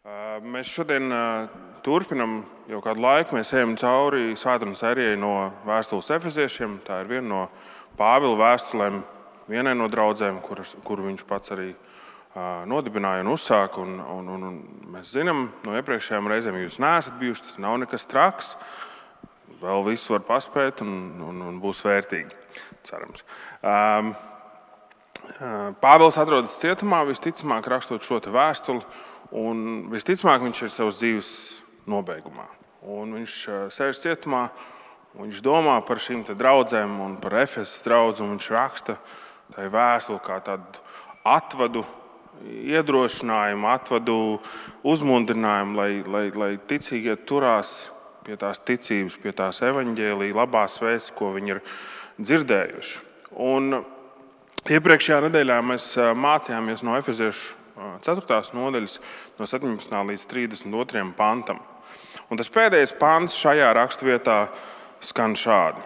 Mēs šodien turpinam jau kādu laiku. Mēs ejam cauri svētdienas sērijai no vēstules Efeziešiem. Tā ir viena no Pāvila vēstulēm vienai no draudzēm, kuru viņš pats arī nodibināja un uzsāka. Un mēs zinām no iepriekšējām reizēm, ja jūs neesat bijuši, tas nav nekas traks. Vēl visu var paspēt un būs vērtīgi, cerams. Pāvils atrodas cietumā, visticamāk rakstot šo te vēstuli. Un visticamāk, viņš ir savas dzīves nobeigumā. Un viņš sēž cietumā, viņš domā par šīm te draudzēm un par Efesas draudzi, un viņš raksta tai vēstuli kā tādu atvadu iedrošinājumu, atvadu uzmundrinājumu, lai ticīgie turās pie tās ticības, pie tās evaņģēlija, labās vēstis, ko viņi ir dzirdējuši. Un iepriekšējā nedēļā mēs mācījāmies no Efeziešu 4. nodaļas, no 17. līdz 32. pantam. Un tas pēdējais pants šajā raksturvietā skan šādi.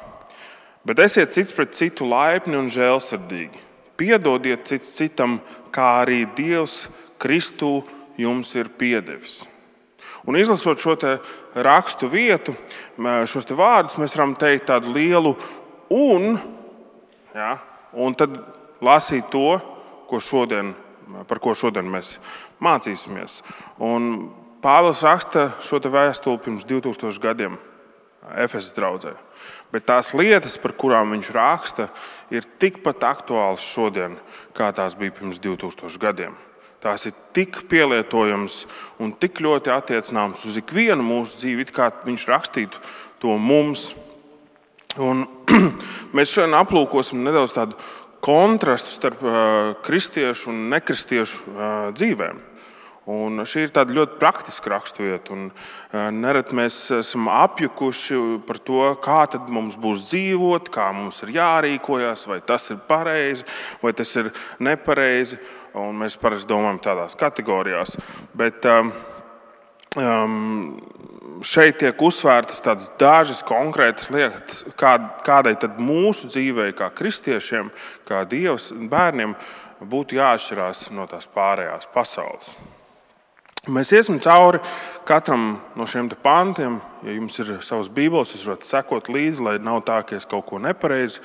Bet esiet cits pret citu laipni un žēlsirdīgi. Piedodiet cits citam, kā arī Dievs Kristū jums ir piedevis. Un izlasot šo te rakstu vietu, šos te vārdus, mēs varam teikt tādu lielu un tad lasīt to, par ko šodien mēs mācīsimies. Un Pāvils raksta šo te vēstuli pirms 2000 gadiem Efesas draudzē. Bet tās lietas, par kurām viņš raksta, ir tikpat aktuālas šodien, kā tās bija pirms 2000 gadiem. Tās ir tik pielietojamas un tik ļoti attiecināmas uz ikvienu mūsu dzīvi, kā viņš rakstītu to mums. Un mēs šodien aplūkosim nedaudz tādu kontrastu starp kristiešu un nekristiešu dzīvēm. Un šī ir tāda ļoti praktiska raksturvieta. Nereti mēs esam apjukuši par to, kā tad mums būs dzīvot, kā mums ir jārīkojas, vai tas ir pareizi, vai tas ir nepareizi. Un mēs parasti domājam tādās kategorijās. Bet šeit tiek uzsvērtas tādas dažas konkrētas lietas, kādai tad mūsu dzīvei, kā kristiešiem, kā Dievs bērniem, būtu jāatšķirās no tās pārējās pasaules. Mēs iesim cauri katram no šiem te pantiem. Ja jums ir savas bībeles, jūs varat sekot līdzi, lai nav tā, ka es kaut ko nepareizi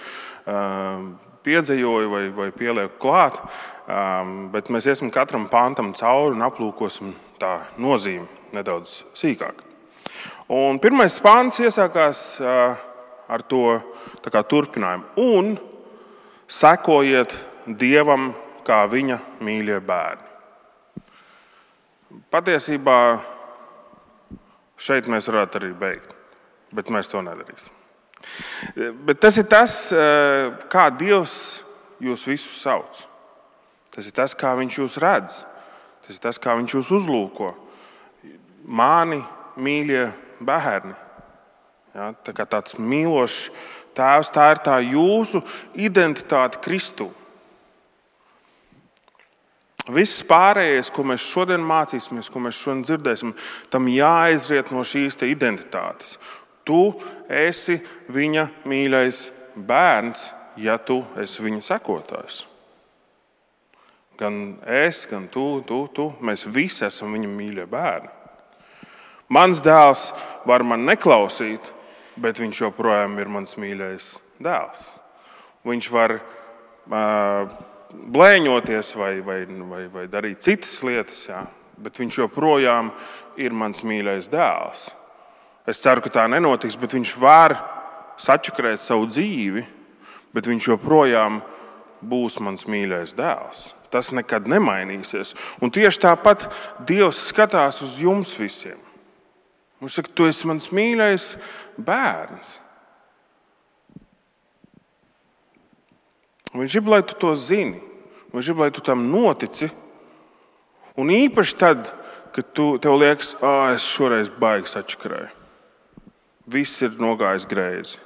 piedzejoju vai pielieku klāt. Bet mēs iesim katram pantam cauri un aplūkosim tā nozīmi nedaudz sīkāk. Un pirmais pants iesākās ar to tā kā turpinājumu. Un sekojiet Dievam kā viņa mīļie bērni. Patiesībā šeit mēs varētu arī beigt, bet mēs to nedarīsim. Bet tas ir tas, kā Dievs jūs visus sauc. Tas ir tas, kā viņš jūs redz. Tas ir tas, kā viņš jūs uzlūko. Mani mīļie bērni. Ja, tā kā tāds mīlošs tēvs, tā ir tā jūsu identitāte Kristū. Viss pārējais, ko mēs šodien mācīsimies, ko mēs šodien dzirdēsim, tam jāizriet no šīs te identitātes. Tu esi viņa mīļais bērns, ja tu esi viņa sekotājs. Gan es, gan tu, mēs visi esam viņa mīļie bērni. Mans dēls var man neklausīt, bet viņš joprojām ir mans mīļais dēls. Viņš var blēņoties vai darīt citas lietas, bet viņš joprojām ir mans mīļais dēls. Es ceru, ka tā nenotiks, bet viņš var sačakrēt savu dzīvi, bet viņš joprojām būs mans mīļais dēls. Tas nekad nemainīsies. Un tieši tāpat Dievs skatās uz jums visiem. Viņš saka, tu esi mans mīļais bērns. Viņš grib, lai tu to zini. Viņš grib, lai tu tam notici. Un īpaši tad, kad tev liekas, es šoreiz baigi sačakrēju. Viss ir nogājis greizi.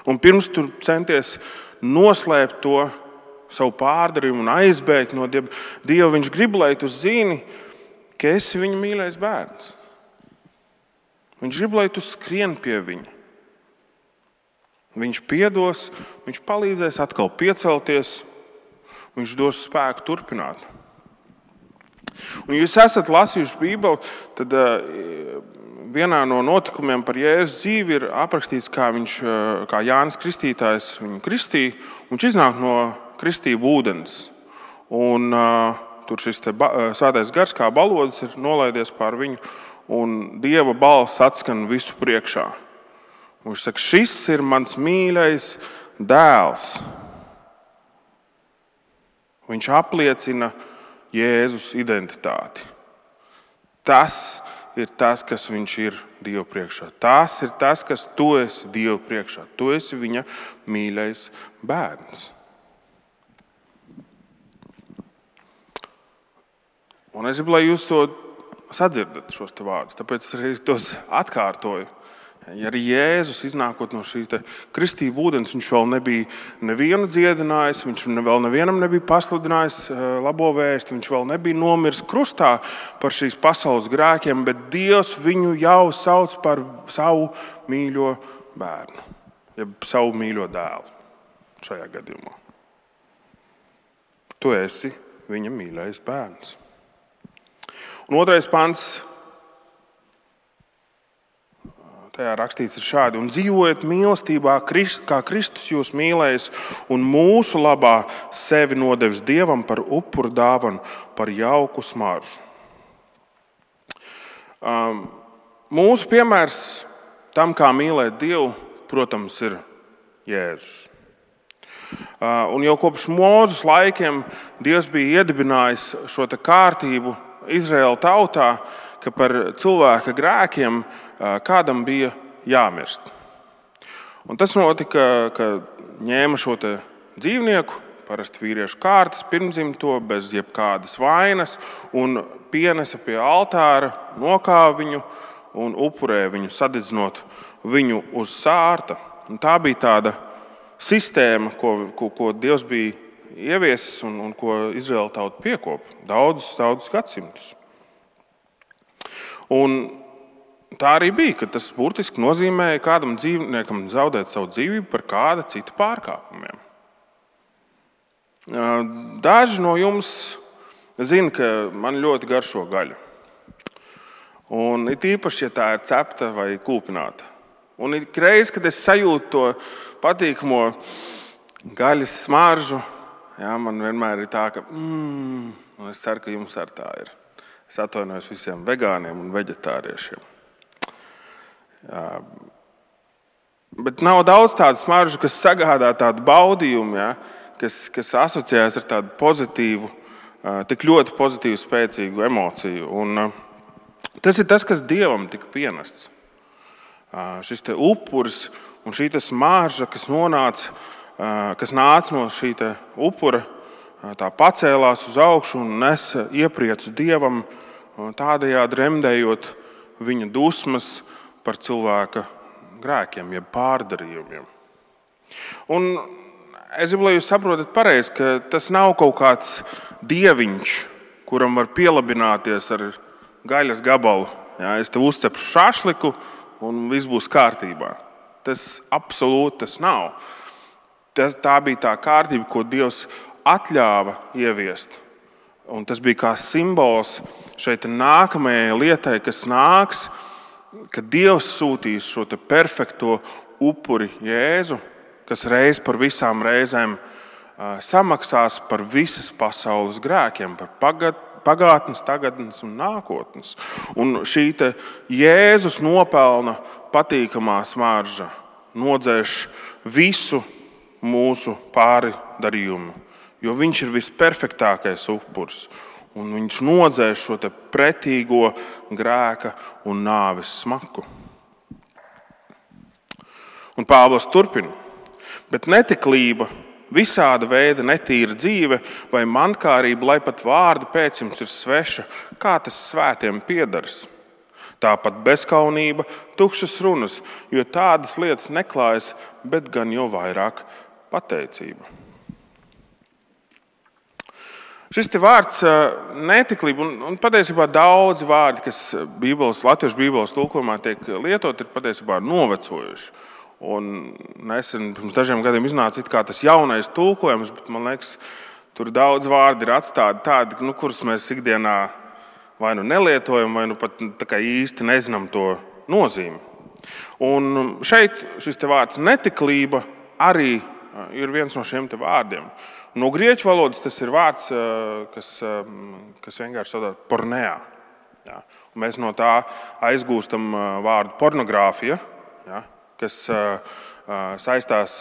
Un pirms tu centies noslēpt to savu pārdarījumu un aizbēgt no Dieva, viņš grib, lai tu zini, ka esi viņa mīļais bērns. Viņš grib, lai tu skrien pie viņa. Viņš piedos, viņš palīdzēs atkal piecelties, viņš dos spēku turpināt. Un jūs esat lasījuši Bībeli, tad vienā no notikumiem par Jēzus dzīvi ir aprakstīts, kā Jānis Kristītājs viņu kristīja, un viņš iznāk no kristību ūdens. Un tur šis svētais gars kā balodis ir nolaidies pār viņu, un Dieva balss atskan visu priekšā. Un viņš saka, šis ir mans mīļais dēls. Viņš apliecina Jēzus identitāti. Tas ir tas, kas viņš ir Dieva priekšā. Tas ir tas, kas tu esi Dieva priekšā. Tu esi viņa mīļais bērns. Un es gribu, lai jūs to sadzirdat, šos te vārdus. Tāpēc es arī tos atkārtoju. Ja arī Jēzus iznākot no šī kristību ūdens, viņš vēl nebija nevienu dziedinājis, viņš vēl nevienam nebija pasludinājis labo vēsti, viņš vēl nebija nomiris krustā par šīs pasaules grēkiem, bet Dievs viņu jau sauc par savu mīļo bērnu, jeb savu mīļo dēlu šajā gadījumā. Tu esi viņa mīļais bērns. Un 2. pants. Tajā rakstīts ir šādi: un dzīvojiet mīlestībā, kā Kristus jūs mīlējis un mūsu labā sevi nodevis Dievam par upuru dāvanu, par jauku smaržu. Mūsu piemērs tam, kā mīlēt Dievu, protams, ir Jēzus. Un jau kopš Mūzes laikiem Dievs bija iedibinājis šo kārtību Izraēla tautā, ka par cilvēka grēkiem kādam bija jāmirst. Un tas notika, ka ņēma šo dzīvnieku, parasti vīriešu kārtas, pirmdzimto, bez jebkādas vainas, un pienesa pie altāra, nokāva viņu un upurēja viņu, sadedzinot viņu uz sārta. Un tā bija tāda sistēma, ko Dievs bija ieviesis un ko Izraēla tauta piekopa daudzus gadsimtus. Un tā arī bija, ka tas burtiski nozīmēja kādam dzīvniekam zaudēt savu dzīvību par kāda cita pārkāpumiem. Daži no jums zina, ka man ļoti garšo gaļa. Un it īpaši, ja tā ir cepta vai kūpināta. Un ik reiz, kad es sajūtu to patīkamo gaļas smaržu, man vienmēr ir tā, ka un es ceru, ka jums ar tā ir. Es atvainojos visiem vegāniem un veģetāriešiem. Bet nav daudz tādu smaržu, kas sagādā tādu baudījumu, kas asociējas ar tādu pozitīvu, tik ļoti pozitīvu, spēcīgu emociju. Un tas ir tas, kas Dievam tika pienests. Šis te upuris un šī smarža, kas nāca no šī upura, tā pacēlās uz augšu un nesa iepriecu Dievam, tādējādi remdējot viņa dusmas par cilvēka grēkiem, jeb pārdarījumiem. Un es gribu, lai jūs saprotat pareizi, ka tas nav kaut kāds dieviņš, kuram var pielabināties ar gaļas gabalu. Es tev uzcepšu šašliku un viss būs kārtībā. Tas absolūti tas nav. Tā bija tā kārtība, ko Dievs atļāva ieviest. Un tas bija kā simbols šeit nākamajai lietai, kas nāks, kad Dievs sūtīs šo perfekto upuri Jēzu, kas reiz par visām reizēm samaksās par visas pasaules grēkiem, par pagātnes, tagadnes un nākotnes. Un šī Jēzus nopelna patīkamā smarža nodzēš visu mūsu pārdarījumu, jo viņš ir visperfektākais upuris. Un viņš nodzēš šo pretīgo grēka un nāves smaku. Un Pāvils turpina. Bet netiklība, visāda veida netīra dzīve vai mankārība, lai pat vārdi pēc jums ir sveša, kā tas svētiem piedaras. Tāpat bezkaunība, tukšas runas, jo tādas lietas neklājas, bet gan jau vairāk pateicība. Šis vārds netiklība, un patiesībā daudzi vārdi, kas latviešu bībeles tulkojumā tiek lietot, ir patiesībā novecojuši. Un nesen, pirms dažiem gadiem iznāca tas jaunais tulkojums, bet man liekas, tur daudz vārdi ir atstāti tādi, kurus mēs ikdienā vai nu nelietojam, vai nu pat tā kā īsti nezinām to nozīmi. Un šeit šis te vārds netiklība arī ir viens no šiem te vārdiem. No grieķu valodas tas ir vārds, kas vienkārši sauc pornea. Ja? Un mēs no tā aizgūstam vārdu pornogrāfija, ja? Kas saistās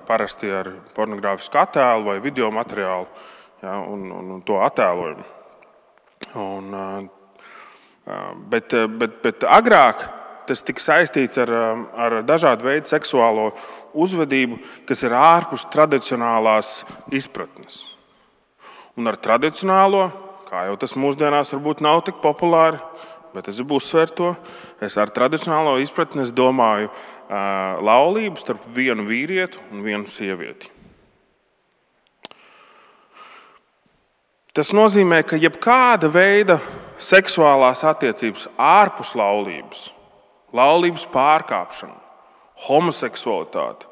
parasti ar pornogrāfisku attēlu vai video materiālu, ja? un to attēlojumu. Bet agrāk tas tika saistīts ar dažādu veidu seksuālo uzvedību, kas ir ārpus tradicionālās izpratnes. Un ar tradicionālo, kā jau tas mūsdienās varbūt nav tik populāri, bet es gribu uzsvērt to, es ar tradicionālo izpratni domāju laulību starp vienu vīrieti un vienu sievieti. Tas nozīmē, ka jebkāda veida seksuālās attiecības ārpus laulības pārkāpšana, homoseksualitāte,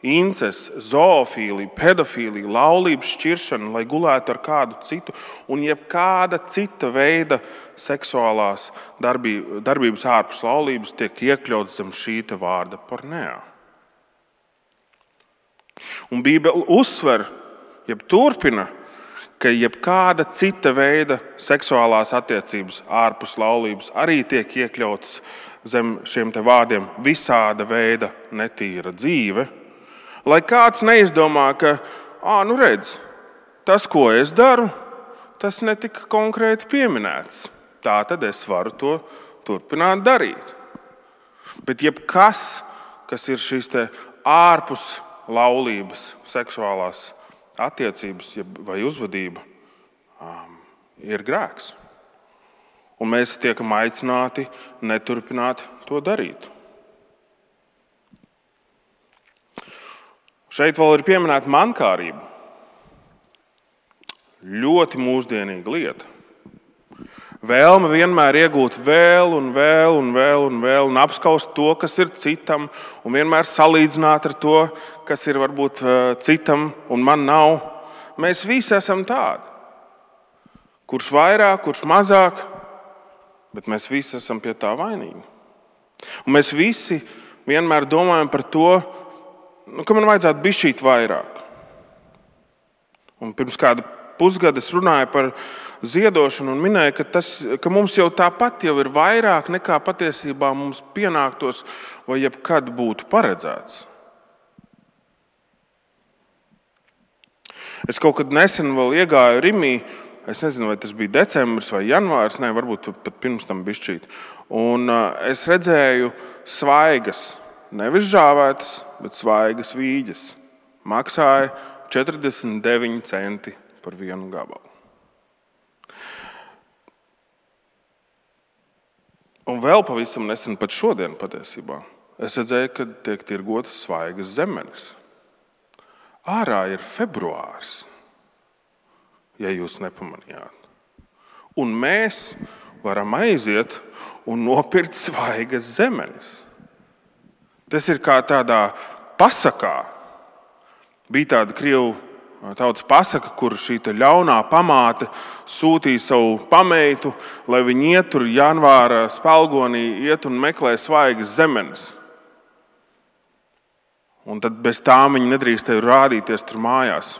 incests, zoofīlija, pedofīlija, laulības šķiršana, lai gulētu ar kādu citu, un jebkāda cita veida seksuālās darbības ārpus laulības tiek iekļauts zem šī vārda pornea. Un Bībele uzsver, turpina, ka jebkāda cita veida seksuālās attiecības ārpus laulības arī tiek iekļautas zem šiem te vārdiem visāda veida netīra dzīve, lai kāds neizdomā, ka, redz, tas, ko es daru, tas netika konkrēti pieminēts. Tā tad es varu to turpināt darīt. Bet jebkas, kas ir šīs te ārpus laulības seksuālās attiecības vai uzvedība, ir grēks. Un mēs tiekam aicināti neturpināt to darīt. Šeit vēl ir pieminēta mankārība. Ļoti mūsdienīga lieta. Vēlme vienmēr iegūt vēl un apskaust to, kas ir citam, un vienmēr salīdzināt ar to, kas ir varbūt citam un man nav. Mēs visi esam tādi. Kurš vairāk, kurš mazāk, bet mēs visi esam pie tā vainīgi. Un mēs visi vienmēr domājam par to, ka man vajadzētu bišķīt vairāk. Un pirms kāda pusgada es runāju par ziedošanu un minēju, ka mums jau tāpat jau ir vairāk nekā patiesībā mums pienāktos vai jebkad būtu paredzēts. Es kaut kad nesen vēl iegāju Rimī, es nezinu, vai tas bija decembris vai janvārs, varbūt pat pirms tam bišķīt. Un es redzēju svaigas, nevis žāvētas, bet svaigas vīģes. Maksāja 49 centi par vienu gabalu. Un vēl pavisam nesen, pat šodien patiesībā, es redzēju, ka tiek tirgotas svaigas zemenes. Ārā ir februārs, ja jūs nepamanījāt. Un mēs varam aiziet un nopirkt svaigas zemenes. Tas ir kā tādā pasakā. Bija tāda krievu tautas pasaka, kur šī ļaunā pamāte sūtīja savu pameitu, lai viņi iet tur janvāra spalgonī, iet un meklē svaigas zemenes. Un tad bez tām viņi nedrīkstēja rādīties tur mājās.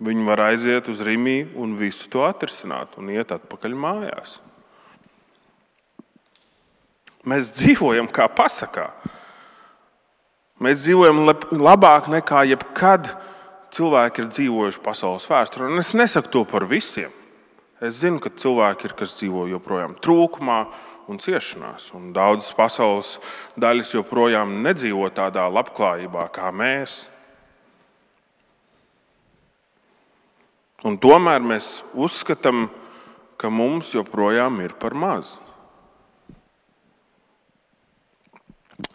Viņi var aiziet uz Rimī un visu to atrisināt un iet atpakaļ mājās. Mēs dzīvojam kā pasakā. Mēs dzīvojam labāk nekā jebkad cilvēki ir dzīvojuši pasaules vēsturē. Un es nesaku to par visiem. Es zinu, ka cilvēki ir, kas dzīvo joprojām trūkumā un ciešanās. Un daudzas pasaules daļas joprojām nedzīvo tādā labklājībā kā mēs. Un tomēr mēs uzskatām, ka mums joprojām ir par maz.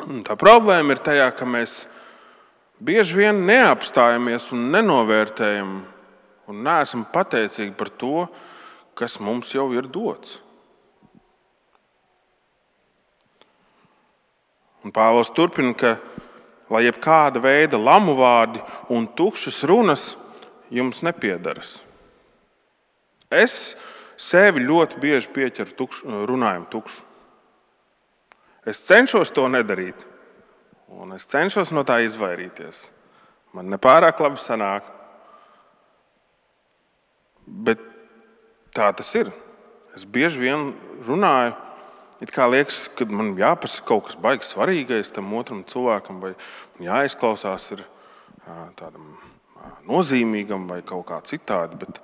Un tā problēma ir tajā, ka mēs bieži vien neapstājamies un nenovērtējam un neesam pateicīgi par to, kas mums jau ir dots. Un Pāvils turpina, ka lai jebkāda veida lamu vārdi un tukšas runas jums nepiedaras. Es sevi ļoti bieži pieķeru runājumu tukšu. Es cenšos to nedarīt, un es cenšos no tā izvairīties. Man nepārāk labi sanāk, bet tā tas ir. Es bieži vien runāju, it kā liekas, ka man jāpasaka kaut kas baigi svarīgais tam otram cilvēkam, vai jāizklausās ir tādam nozīmīgam vai kaut kā citādi, bet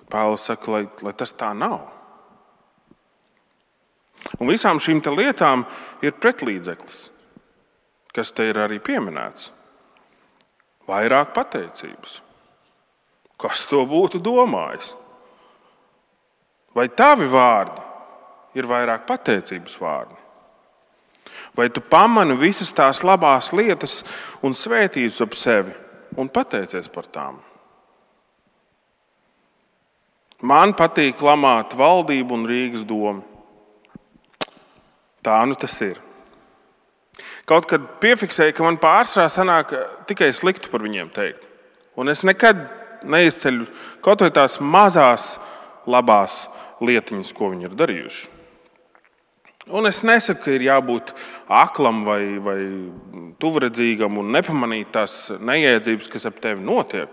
Pāvils saka, lai tas tā nav. Un visām šīm lietām ir pretlīdzeklis, kas te ir arī pieminēts. Vairāk pateicības. Kas to būtu domājis? Vai tavi vārdi ir vairāk pateicības vārdi? Vai tu pamani visas tās labās lietas un svētības ap sevi un pateicies par tām? Man patīk lamāt valdību un Rīgas domu. Tā nu tas ir. Kaut kad piefiksēju, ka man pārsvarā sanāk tikai sliktu par viņiem teikt. Un es nekad neizceļu kaut vai tās mazās labās lietiņas, ko viņi ir darījuši. Un es nesaku, ka ir jābūt aklam vai tuvredzīgam un nepamanīt tās neiedzības, kas ap tevi notiek.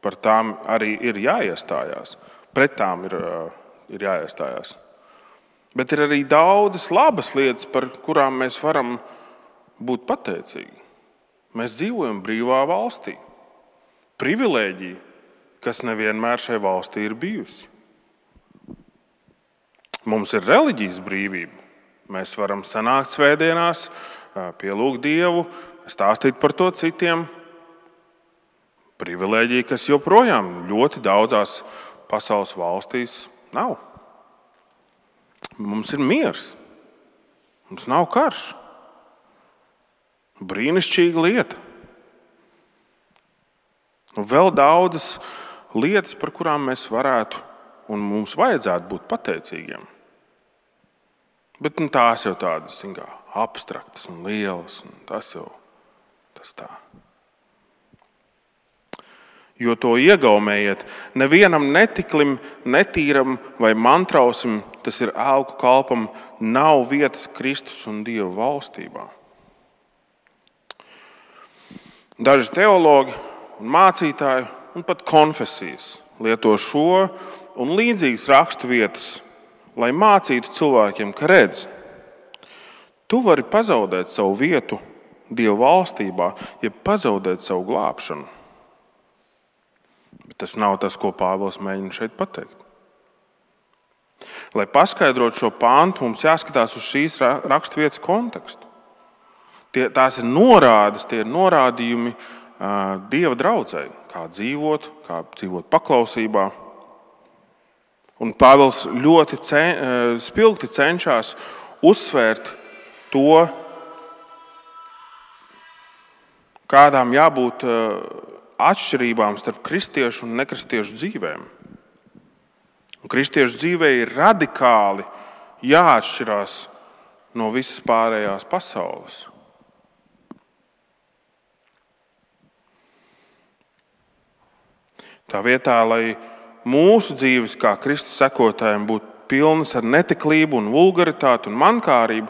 Par tām arī ir jāiestājās. Pret tām ir jāiestājās. Bet ir arī daudzas labas lietas, par kurām mēs varam būt pateicīgi. Mēs dzīvojam brīvā valstī. Privilēģija, kas nevienmēr šai valstī ir bijusi. Mums ir reliģijas brīvība. Mēs varam sanākt svētdienās, pielūgt Dievu, stāstīt par to citiem. Privilēģija, kas joprojām ļoti daudzās pasaules valstīs nav. Mums ir miers. Mums nav karš. Brīnišķīga lieta. Un vēl daudzas lietas, par kurām mēs varētu un mums vajadzētu būt pateicīgiem. Bet tās jau tādas abstraktas un lielas. Un tas tā. Jo to iegaumējiet, nevienam netiklim, netīram vai mantrausim, tas ir ēlku kalpam, nav vietas Kristus un Dieva valstībā. Daži teologi un mācītāji un pat konfesijas lieto šo un līdzīgas rakstu vietas, lai mācītu cilvēkiem, ka redz, tu vari pazaudēt savu vietu Dieva valstībā, ja pazaudēt savu glābšanu. Bet tas nav tas, ko Pāvils mēģina šeit pateikt. Lai paskaidrotu šo pāntu, mums jāskatās uz šīs raksturvietas kontekstu. Tās ir norādes, tie ir norādījumi Dieva draudzei, kā dzīvot paklausībā. Un Pāvils ļoti spilgti cenšas uzsvērt to, kādām jābūt atšķirībām starp kristiešu un nekristiešu dzīvēm. Un kristiešu dzīvē ir radikāli jāatšķirās no visas pārējās pasaules. Tā vietā, lai mūsu dzīves kā Kristus sekotājiem būtu pilnas ar netiklību un vulgaritāti un mankārību,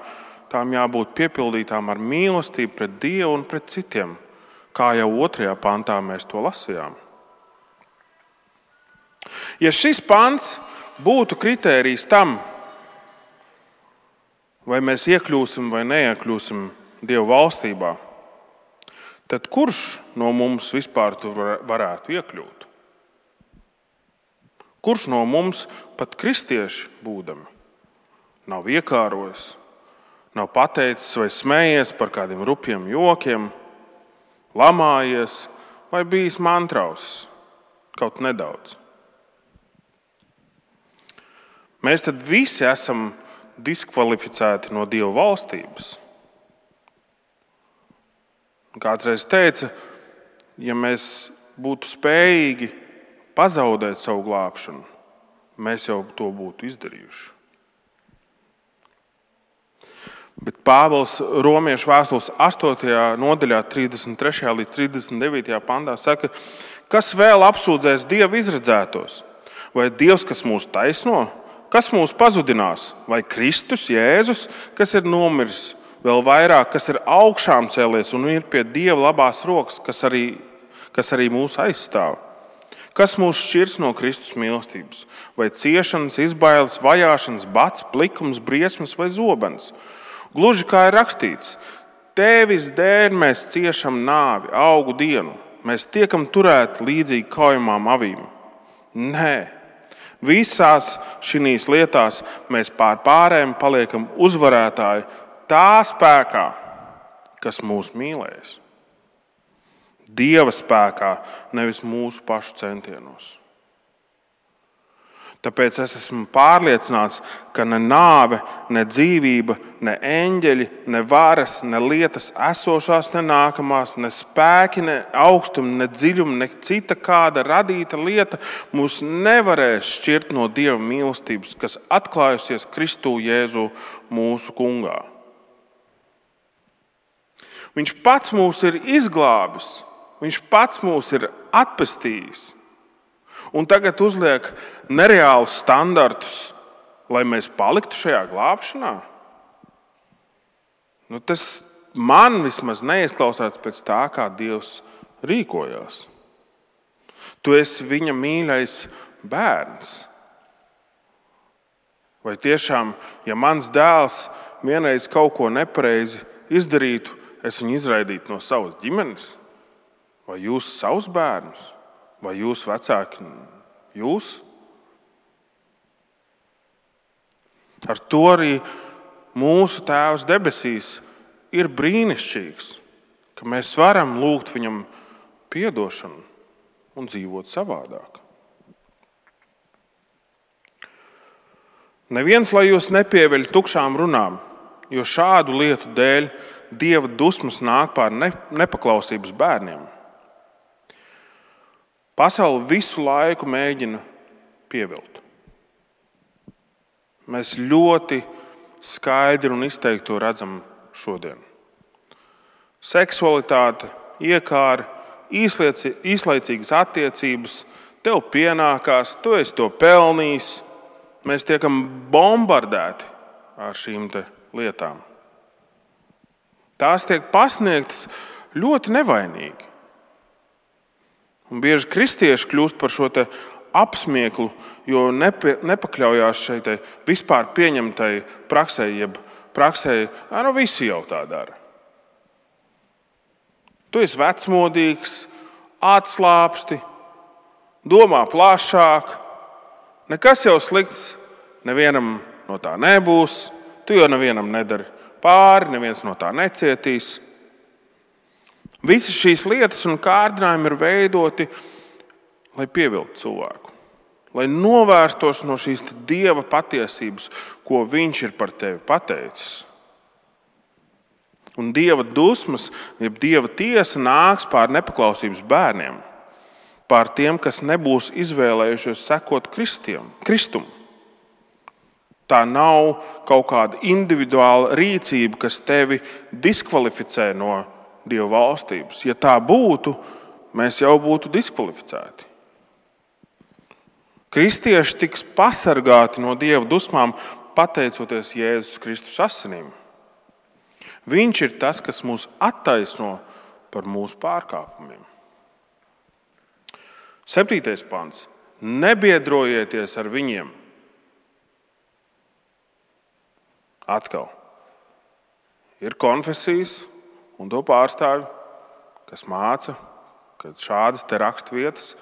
tām jābūt piepildītām ar mīlestību pret Dievu un pret citiem. Kā jau 2. pantā mēs to lasījām. Ja šis pants būtu kritērijs tam, vai mēs iekļūsim vai neiekļūsim Dieva valstībā, tad kurš no mums vispār tur varētu iekļūt? Kurš no mums, pat kristieši būdami, nav iekārojis, nav pateicis vai smējies par kādiem rupjiem jokiem, lamājies vai bijis mantrausis kaut nedaudz? Mēs tad visi esam diskvalificēti no Dieva valstības. Kāds reiz teica, ja mēs būtu spējīgi pazaudēt savu glābšanu, mēs jau to būtu izdarījuši. Bet Pāvils Romiešu vēstules 8. nodaļā, 33. līdz 39. pantā saka, kas vēl apsūdzēs Dieva izredzētos? Vai Dievs, kas mūs taisno? Kas mūs pazudinās? Vai Kristus, Jēzus, kas ir nomiris, vēl vairāk, kas ir augšām cēlies un ir pie Dieva labās rokas, kas arī mūs aizstāv? Kas mūs šķirs no Kristus mīlestības? Vai ciešanas, izbailes, vajāšanas, bats, plikums, briesmas vai zobens? Gluži kā ir rakstīts, Tevis dēļ mēs ciešam nāvi, augu dienu. Mēs tiekam turēti līdzīgi kaujamām avīm. Nē, visās šīs lietās mēs pār pārējiem paliekam uzvarētāji tā spēkā, kas mūs mīlēs. Dieva spēkā, nevis mūsu pašu centienos. Tāpēc es esmu pārliecināts, ka ne nāve, ne dzīvība, ne eņģeļi, ne varas, ne lietas esošās, ne nākamās, ne spēki, ne augstumi, ne dziļumi, ne cita kāda radīta lieta mūs nevarēs šķirt no Dieva mīlestības, kas atklājusies Kristū Jēzu mūsu Kungā. Viņš pats mūs ir izglābis, viņš pats mūs ir atpestījis. Un tagad uzliek nereālus standartus, lai mēs paliktu šajā glābšanā. Tas man vismaz neizklausās pēc tā, kā Dievs rīkojās. Tu esi viņa mīļais bērns. Vai tiešām, ja mans dēls vienreiz kaut ko nepareizi izdarītu, es viņu izraidītu no savas ģimenes? Vai jūs savus bērnus? Vai jūs vecāki, jūs? Ar to arī mūsu Tēvs debesīs ir brīnišķīgs, ka mēs varam lūgt viņam piedošanu un dzīvot savādāk. Neviens, lai jūs nepieveļ tukšām runām, jo šādu lietu dēļ Dieva dusmas nāk pār nepaklausības bērniem. Pasaule visu laiku mēģina pievilt. Mēs ļoti skaidri un izteikti to redzam šodien. Seksualitāte, iekāri, īslaicīgas attiecības, tev pienākās, tu esi to pelnījis. Mēs tiekam bombardēti ar šīm lietām. Tās tiek pasniegtas ļoti nevainīgi. Un bieži kristieši kļūst par šo apsmieklu, jo nepakļaujās šai vispār pieņemtai praksē, jeb praksē, visi jau tā dara. Tu esi vecmodīgs, atslābsti, domā plašāk, nekas jau slikts nevienam no tā nebūs, tu jau nevienam nedari pāri, neviens no tā necietīs. Visas šīs lietas un kārdinājumi ir veidoti, lai pievilktu cilvēku, lai novērstos no šīs Dieva patiesības, ko viņš ir par tevi pateicis. Un Dieva dusmas, jeb Dieva tiesa nāks pār nepaklausības bērniem, pār tiem, kas nebūs izvēlējušies sekot Kristum. Tā nav kaut kāda individuāla rīcība, kas tevi diskvalificē no Dieva valstības. Ja tā būtu, mēs jau būtu diskvalificēti. Kristieši tiks pasargāti no Dieva dusmām, pateicoties Jēzus Kristus asinīm. Viņš ir tas, kas mūs attaisno par mūsu pārkāpumiem. 7. pants. Nebiedrojieties ar viņiem. Atkal. Ir konfesijas un to pārstāvji, kas māca, ka šādas raksturvietas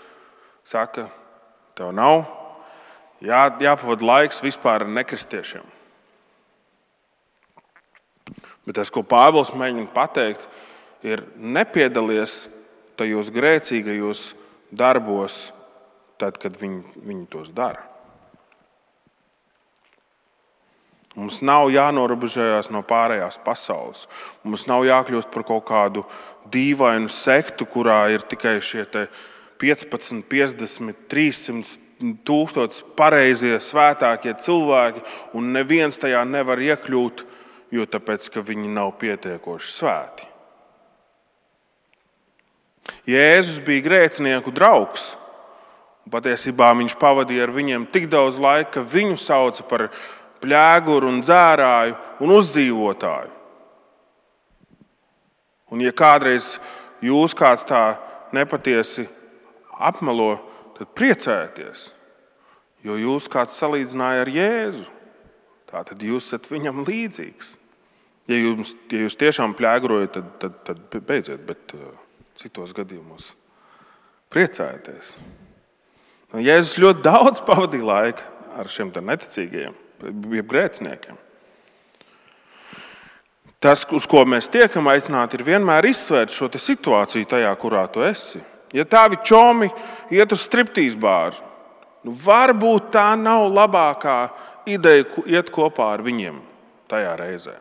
saka, tev nav jāpavada laiks vispār ar nekristiešiem. Bet tas, ko Pāvils mēģina pateikt, ir nepiedalies tajos grēcīgajos darbos, tad, kad viņi tos dara. Mums nav jānorobežojās no pārējās pasaules. Mums nav jākļūst par kaut kādu dīvainu sektu, kurā ir tikai šie 15, 50, 300 tūkstoši pareizie, svētākie cilvēki, un neviens tajā nevar iekļūt, jo tāpēc, ka viņi nav pietiekoši svēti. Jēzus bija grēcinieku draugs. Patiesībā viņš pavadīja ar viņiem tik daudz laika, ka viņu sauca par pļēguru un dzērāju un uzdzīvotāju. Un ja kādreiz jūs kāds tā nepatiesi apmelo, tad priecājieties, jo jūs kāds salīdzināja ar Jēzu. Tātad jūs esat viņam līdzīgs. Ja jūs tiešām pļēgrojat, tad beidziet, bet citos gadījumos priecājieties. Jēzus ļoti daudz pavadīja laika ar šiem neticīgajiem, jeb grēciniekiem. Tas, uz ko mēs tiekam aicināti, ir vienmēr izsvērt šo situāciju tajā, kurā tu esi. Ja tavi čomi iet uz striptīz bāru, varbūt tā nav labākā ideja iet kopā ar viņiem tajā reizē.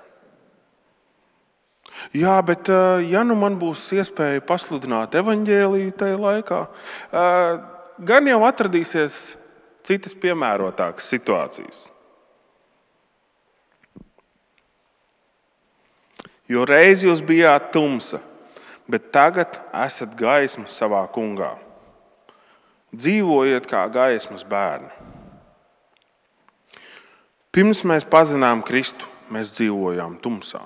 Jā, bet ja man būs iespēja pasludināt evaņģēliju tajā laikā, gan jau atradīsies citas piemērotākas situācijas. Jo reiz jūs bijāt tumsa, bet tagad esat gaisma savā kungā. Dzīvojiet kā gaismas bērni. Pirms mēs pazinām Kristu, mēs dzīvojām tumsā.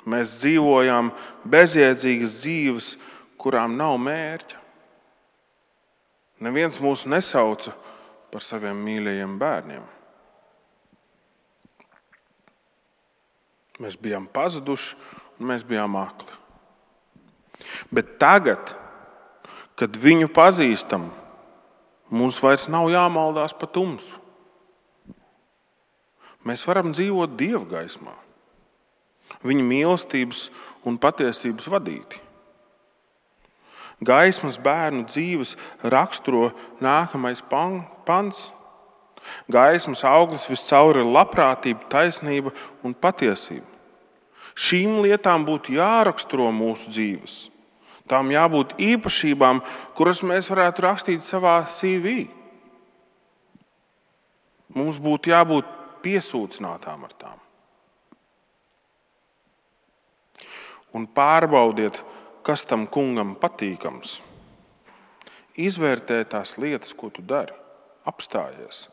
Mēs dzīvojām bezjēdzīgas dzīves, kurām nav mērķa. Neviens mūs nesauca par saviem mīļajiem bērniem. Mēs bijām pazuduši un mēs bijām akli. Bet tagad, kad viņu pazīstam, mums vairs nav jāmaldās pa tumsu. Mēs varam dzīvot Dieva gaismā, viņa mīlestības un patiesības vadīti. Gaismas bērnu dzīves raksturo nākamais pants. Gaismas auglis viscaur ir labprātība, taisnība un patiesība. Šīm lietām būtu jāraksturo mūsu dzīves. Tām jābūt īpašībām, kuras mēs varētu rakstīt savā CV. Mums būtu jābūt piesūcinātām ar tām. Un pārbaudiet, kas tam kungam patīkams. Izvērtē tās lietas, ko tu dari. Apstājies.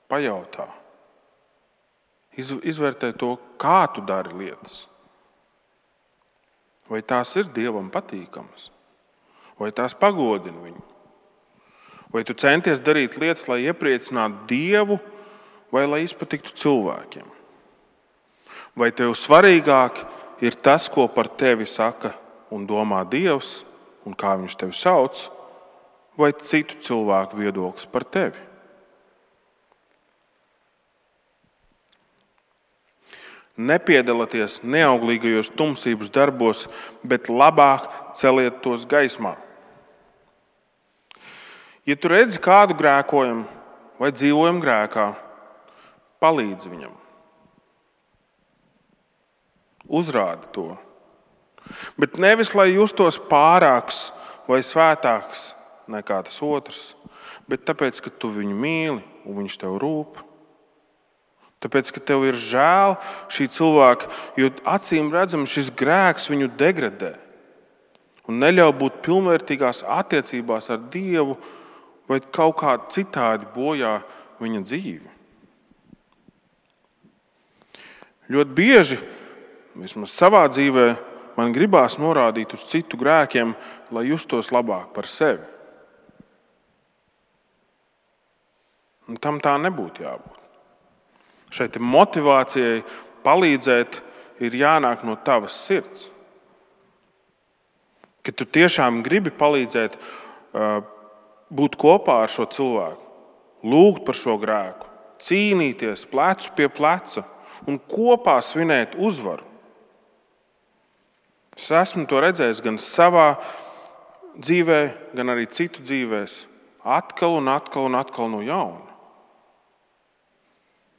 Pajautā. Izvērtē to, kā tu dari lietas. Vai tās ir Dievam patīkamas? Vai tās pagodina viņu? Vai tu centies darīt lietas, lai iepriecinātu Dievu, vai lai izpatiktu cilvēkiem? Vai tev svarīgāk ir tas, ko par tevi saka un domā Dievs, un kā viņš tevi sauc, vai citu cilvēku viedoklis par tevi? Nepiedalieties neauglīgajos tumsības darbos, bet labāk celiet tos gaismā. Ja tu redzi kādu grēkojam vai dzīvojam grēkā, palīdzi viņam. Uzrādi to. Bet nevis, lai justos pārāks vai svētāks nekā tas otrs, bet tāpēc, ka tu viņu mīli un viņš tev rūp. Tāpēc, ka tev ir žēl šī cilvēka, jo acīm redzami šis grēks viņu degradē un neļauj būt pilnvērtīgās attiecībās ar Dievu vai kaut kā citādi bojā viņa dzīvi. Ļoti bieži, vismaz savā dzīvē, man gribās norādīt uz citu grēkiem, lai justos labāk par sevi. Un tam tā nebūtu jābūt. Šeit motivācijai palīdzēt ir jānāk no tavas sirds. Kad tu tiešām gribi palīdzēt būt kopā ar šo cilvēku, lūgt par šo grēku, cīnīties plecu pie pleca un kopā svinēt uzvaru. Es esmu to redzējis gan savā dzīvē, gan arī citu dzīvēs, atkal un atkal un atkal no jauna.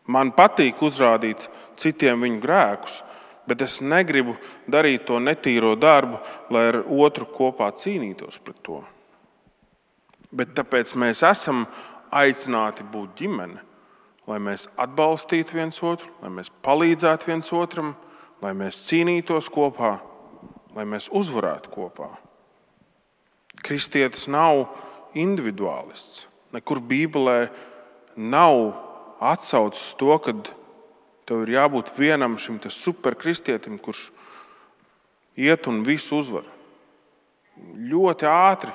Man patīk uzrādīt citiem viņu grēkus, bet es negribu darīt to netīro darbu, lai ar otru kopā cīnītos pret to. Bet tāpēc mēs esam aicināti būt ģimene, lai mēs atbalstītu viens otru, lai mēs palīdzētu viens otram, lai mēs cīnītos kopā, lai mēs uzvarētu kopā. Kristietis nav individuālists. Nekur Bībelē nav atsaucis to, ka tev ir jābūt vienam šim superkristietim, kurš iet un visu uzvar. Ļoti ātri,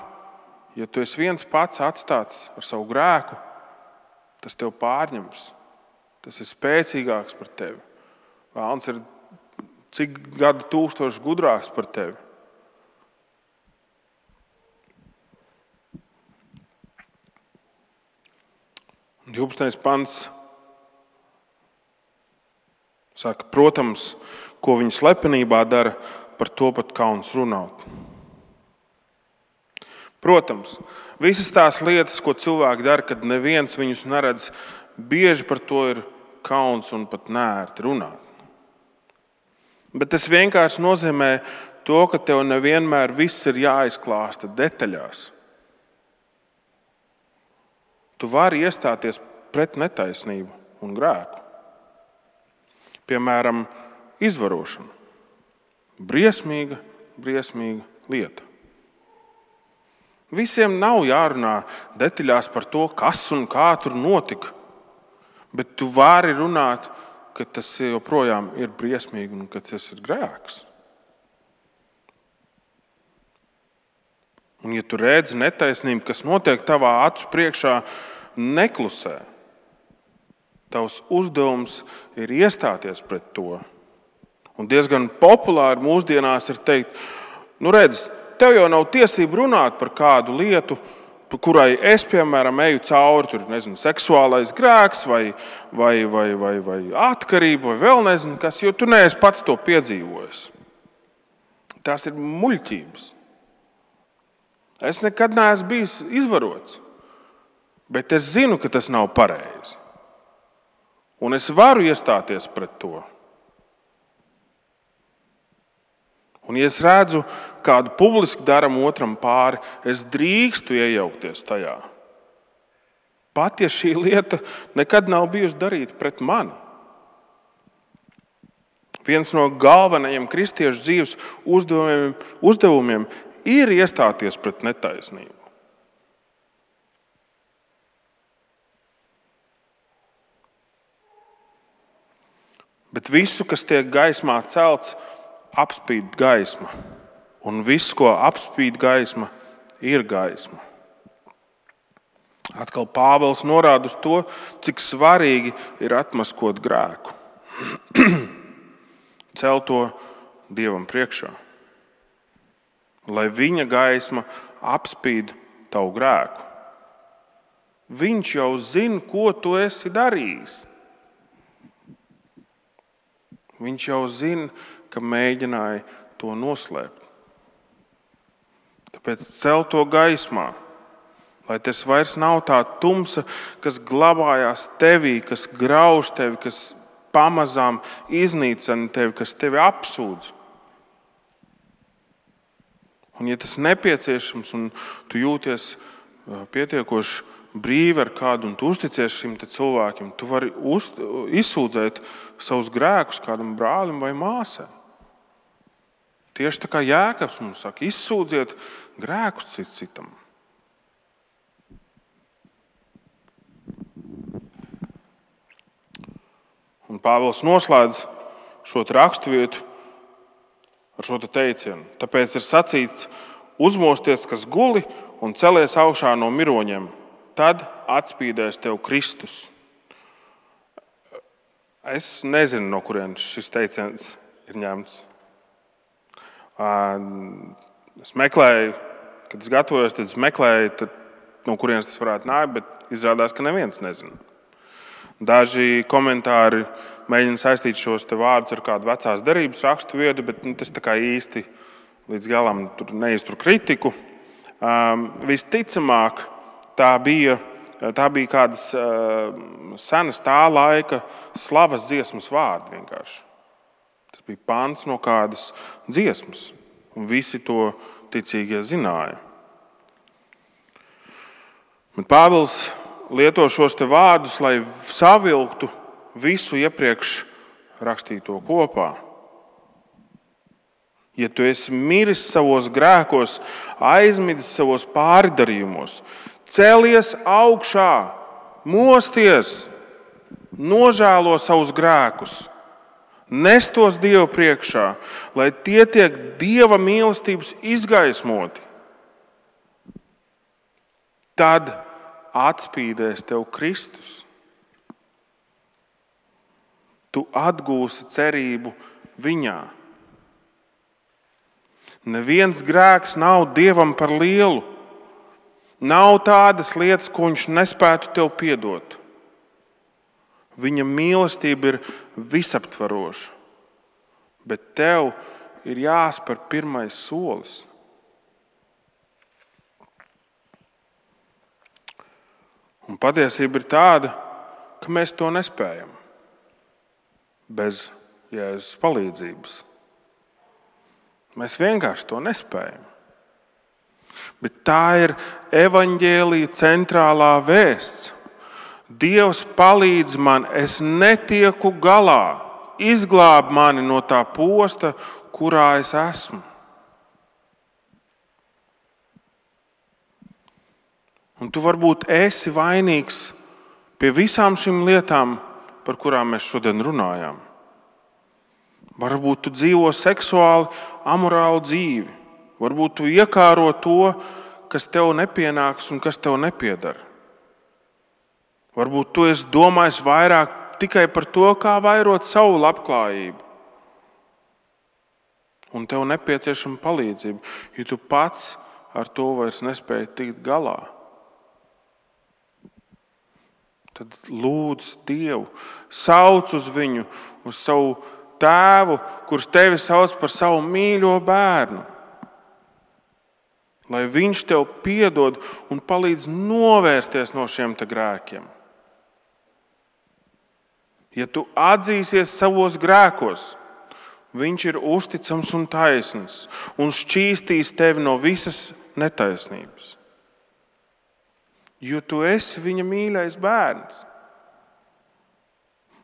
ja tu esi viens pats atstāts ar savu grēku, tas tev pārņems. Tas ir spēcīgāks par tevi. Vēlns ir cik gadu tūkstoši gudrāks par tevi. Un 12. pants saka, protams, ko viņi slepenībā dara, par to pat kauns runāt. Protams, visas tās lietas, ko cilvēki dara, kad neviens viņus neredz, bieži par to ir kauns un pat neērti runāt. Bet tas vienkārši nozīmē to, ka tev nevienmēr viss ir jāizklāsta detaļās. Tu vari iestāties pret netaisnību un grēku. Piemēram, izvarošana. Briesmīga lieta. Visiem nav jārunā detaļās par to, kas un kā tur notika, bet tu vari runāt, ka tas joprojām ir briesmīgi un ka tas ir grēks. Un ja tu redzi netaisnību, kas notiek tavā acu priekšā, neklusē. Tavs uzdevums ir iestāties pret to. Un diezgan populāri mūsdienās ir teikt, redz, tev jau nav tiesība runāt par kādu lietu, kurai es, piemēram, eju cauri, tur, seksuālais grēks vai atkarība vai vēl nezinu kas, jo tu neesi pats to piedzīvojis. Tās ir muļķības. Es nekad neesmu bijis izvarots, bet es zinu, ka tas nav pareizi. Un es varu iestāties pret to. Un, ja es redzu, kādu publiski daram otram pāri, es drīkstu iejaukties tajā. Pat ja šī lieta nekad nav bijusi darīta pret mani. Viens no galvenajiem kristiešu dzīves uzdevumiem ir iestāties pret netaisnību. Bet visu, kas tiek gaismā celts, apspīd gaisma. Un viss, ko apspīd gaisma, ir gaisma. Atkal Pāvils norāda uz to, cik svarīgi ir atmaskot grēku. Cel to Dievam priekšā. Lai viņa gaisma apspīd tavu grēku. Viņš jau zina, ko tu esi darījis. Viņš jau zina, ka mēģināja to noslēpt. Tāpēc cel to gaismā, lai tas vairs nav tā tumsa, kas glabājās tevī, kas grauž tevi, kas pamazām iznīcina tevi, kas tevi apsūdz. Un ja tas nepieciešams un tu jūties pietiekoši brīvi ar kādu un tu uzticies šim cilvēkiem, tu vari izsūdzēt savus grēkus kādam brālim vai māsai. Tieši tā kā Jēkabs mums saka, izsūdziet grēkus cits citam. Un Pāvils noslēdz šo raksturvietu ar šo teicienu. Tāpēc ir sacīts, uzmosties, kas guli, un celies augšā no miroņiem. Tad atspīdēs tev Kristus. Es nezinu, no kurienes šis teiciens ir ņemts. Es meklēju, kad es gatavojos, tad es meklēju, no kurienes tas varētu nākt, bet izrādās, ka neviens nezina. Daži komentāri mēģina saistīt šos te vārdus ar kādu vecās derības rakstu vietu, bet tas tā kā īsti līdz galam neiztur kritiku. Visticamāk, tā bija kādas senas tā laika slavas dziesmas vārdi vienkārši. Tas bija pants no kādas dziesmas, un visi to ticīgie zināja. Bet Pāvils lieto šos te vārdus, lai savilktu visu iepriekš rakstīto kopā. Ja tu esi miris savos grēkos, aizmidis savos pārdarījumos, celies augšā, mosties, nožēlo savus grēkus, nes tos Dievu priekšā, lai tie tiek Dieva mīlestības izgaismoti. Tad atspīdēs tev Kristus. Tu atgūsi cerību viņā. Neviens grēks nav Dievam par lielu. Nav tādas lietas, ko viņš nespētu tev piedot. Viņa mīlestība ir visaptvaroša, bet tev ir jāspēr pirmais solis. Un patiesība ir tāda, ka mēs to nespējam bez Jēzus palīdzības. Mēs vienkārši to nespējam. Bet tā ir evaņģēlija centrālā vēsts. Dievs palīdz man, es netieku galā, izglāb mani no tā posta, kurā es esmu. Un tu varbūt esi vainīgs pie visām šīm lietām, par kurām mēs šodien runājām. Varbūt tu dzīvo seksuāli amorālu dzīvi. Varbūt tu iekāro to, kas tev nepienāks un kas tev nepiedara. Varbūt tu esi domājis vairāk tikai par to, kā vairot savu labklājību. Un tev nepieciešama palīdzība, jo tu pats ar to vairs nespēji tikt galā. Tad lūdz Dievu, sauc uz viņu, uz savu tēvu, kurš tevi sauc par savu mīļo bērnu. Lai viņš tev piedod un palīdz novērsties no šiem te grēkiem. Ja tu atzīsies savos grēkos, viņš ir uzticams un taisns un šķīstīs tevi no visas netaisnības. Jo tu esi viņa mīļais bērns.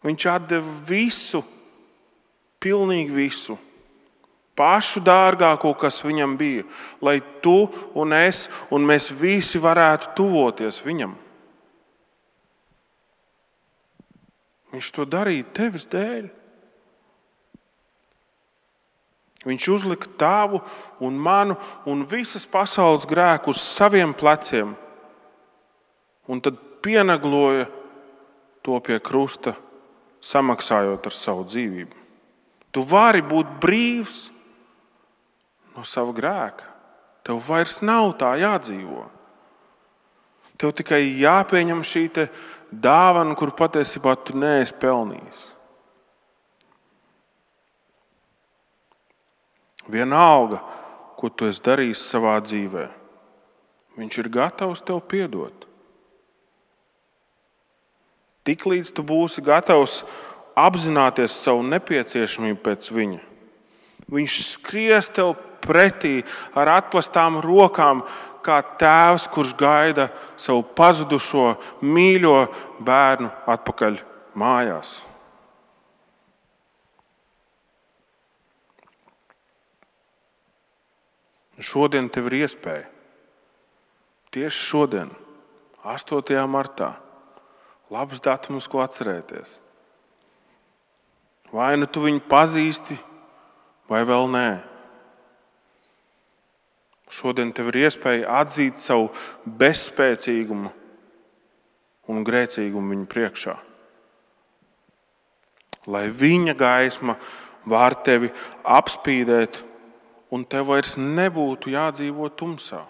Viņš atdeva visu, pilnīgi visu, pašu dārgāko, kas viņam bija, lai tu un es un mēs visi varētu tuvoties viņam. Viņš to darīja tevis dēļ. Viņš uzlika tavu un manu un visas pasaules grēku uz saviem pleciem un tad pienagloja to pie krusta, samaksājot ar savu dzīvību. Tu vari būt brīvs no sava grēka. Tev vairs nav tā jādzīvo. Tev tikai jāpieņem šī te dāvana, kur patiesībā tu neesi pelnījis. Vienalga, ko tu esi darījis savā dzīvē, viņš ir gatavs tev piedot. Tiklīdz tu būsi gatavs apzināties savu nepieciešamību pēc viņa, viņš skries tev pretī ar atplastām rokām, kā tēvs, kurš gaida savu pazudušo mīļo bērnu atpakaļ mājās. Šodien tev ir iespēja. Tieši šodien, 8. martā, labs datums, ko atcerēties. Vai nu tu viņu pazīsti, vai vēl nē. Šodien tev ir iespēja atzīt savu bezspēcīgumu un grēcīgumu viņa priekšā. Lai viņa gaisma var tevi apspīdēt un tev vairs nebūtu jādzīvo tumsā.